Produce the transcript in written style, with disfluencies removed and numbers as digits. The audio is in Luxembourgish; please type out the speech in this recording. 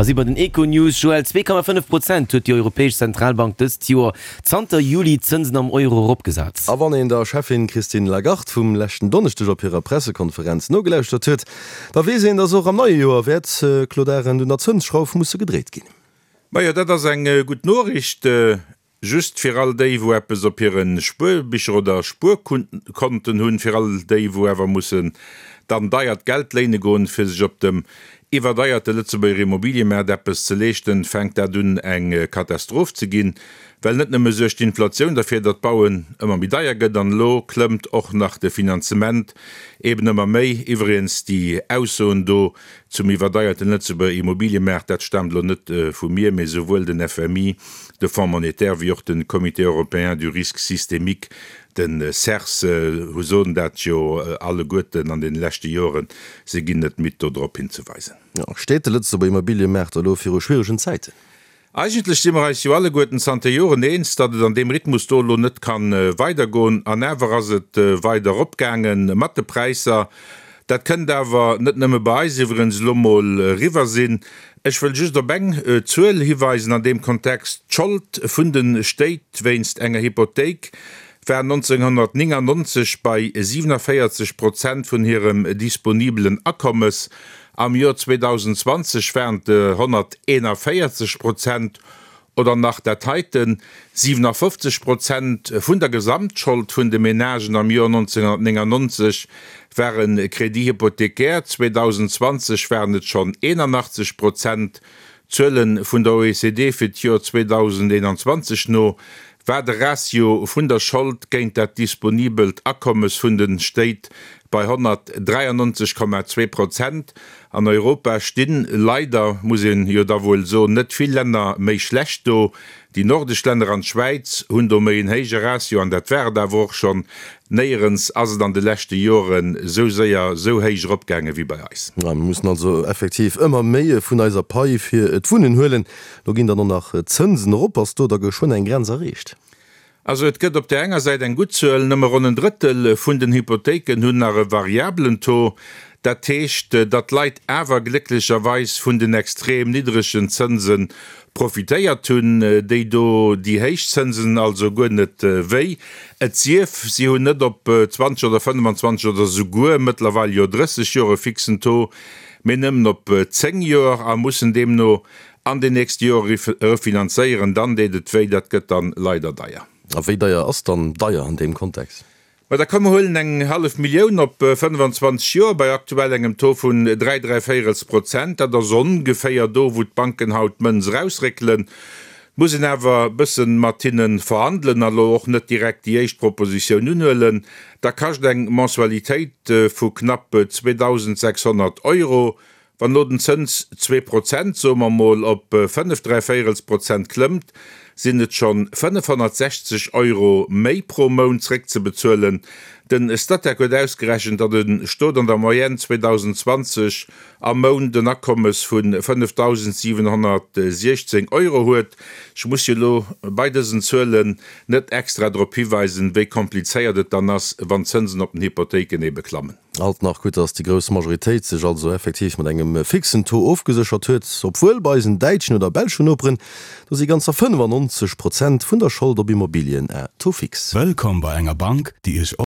A si bei den Econews. Joël, 2,5 Prozent huet déi Europäesch Zentralbank dëst Joer zanter Juli d'Zënsen am Euro eropgesat. A wann een der Cheffin Christine Lagarde vum leschten Donneschdeg op hirer Pressekonferenz nogelauschtert huet, da weess een, datt och am neie Joer wäert, Claude Arend, un der Zënsschrauf musse gedréit ginn. Majo, dat ass eng gutt Noriicht. Just fir all déi, wou eppes op hire Spuerbicher oder Spuerkonten hunn, fir all déi, wou awer mussen dann deiert Geld léine goen, fir sech op dem iwwerdeierte Lëtzebuerger Immobiliëmaart eppes ze leeschten, fänkt dat un eng Katastroph ze ginn. Well net nëmme suergt d'Inflatioun derfir, datt d'Bauen ëmmer méi deier gëtt, an elo klëmmt och nach de Finanzement eben ëmmer méi. Iwwregens déi Aussoen do Zum iwwerdeierten Lëtzebuerger Immobiliëmaart, dat staamt elo net vu mir, mee souwuel den FMI, de Fonds monétaire, wéi och de Comité européen du risque systémique, de CERS, hu soen dat jo alleguerten an deene leschte Joren. Se ginn net midd do drop hinzeweisen. Steet de Lëtzebuerger Immobiliëmaart elo viru schwieregen Zäiten? Eigentlech si mer eis jo alleguerten zanter Joren eens, datt et an deem Rhythmus do elo net ka weidergoen. An awer ass et weider eropgaange mat de Präisser. Dat kënnt awer net nëmme bei eis iwwerens elo mol eriwwer sinn. Ech wëll just op eng Zuel hiweisen an deem Kontext, D'Schold vun de Stéit wéinst enger Hypothéik war 1999 bei 47 Prozent vun hirem disponibelen Akommes. Am Joer 2020 waren et 141 Prozent, oder nach dat heiten, 57 Prozent vun der Gesamtschold vun de Menagen am Joer 1999 ware Crédit hypothécaire, 2020 waren et schonn 81 Prozent. Zuele vun der OECD fir d'Joer 2021 no war de Ratio vun der Schold géint dat disponibelt Akommes vun de Stéit bei 193,2 Prozent. An Europa stinn, leider muss een jo da wuel soen, net vill Länner méi schlecht do. Déi nordesch Länner an d'Schwäiz hunn do méi en héije Ratio, an dat war et awer och schonn. Néierens ass et an de leschte Joren esou séier esou héich eropgaange wéi bei eis. Mir mussen also effektiv ëmmer méi vun eiser Pai fir d'Wunnen huelen. Lo ginn dann och nach d'Zënsen erop. Ass do da geschwënn eng Grenz erreecht? Also et gëtt op där enger Säit eng gutt Zuel, nëmme ronn en Drëttel vun den Hypothéiken hunn nach e variabelen Taux. Dat heescht, datt d'Leit awer glécklecherweis vun den extrem niddregen Zënse profitéiert hunn, déi do déi héich Zënsen also guer net wéi. Et sief, si hunn net op 20 oder 25 oder souguer mëttlerweil jo 30 Joer e fixen Taux, mee nëmmen op 10 Joer a mussen deemno an den nächste Jore refinanzéieren, dann deet et wéi, dat gëtt dann leider deier. A wéi deier ass dann deier an deem Kontext? Ma da komm mer huelen eng hallef Millioun op 25 Joer bei aktuell engem Taux vun 3 dräivéierels Prozent. Dat ass ongeféier do, wou d'Banken haut d'Mënz erausréckelen. Et muss een awer e bëssen mat hinne verhandelen a lo och net direkt déi éischt Propositioun unhuelen. Da kascht eng Mensualitéit vu knapp 2.600 Euro Wann elo den Zëns 2%, soe mer mol, op 5 dräivéierels Prozent klëmmt, sinn et schonn 560 Euro méi pro Mount zréckzebezuelen. Den Statec huet ausgerechent, datt e Stot an der Moyenne 2020 am Mount en Akommes vu 5.716 Euro huet. Ech muss jo elo bei dësen Zuelen net extra drop hiweisen, wéi komplizéiert et dann ass, wann d'Zënsen op den Hypothéiken ebe klammen. Alt nach gutt, dass déi grouss Majoritéit sech also effektiv mat engem fixen Taux ofgeséchert huet, obwuel bei eisen däitschen oder belschen Noperen, do si ganzer 95 Prozent vun der Schold op Immobilien à taux fixe. Wëllkomm bei enger Bank, déi Iech.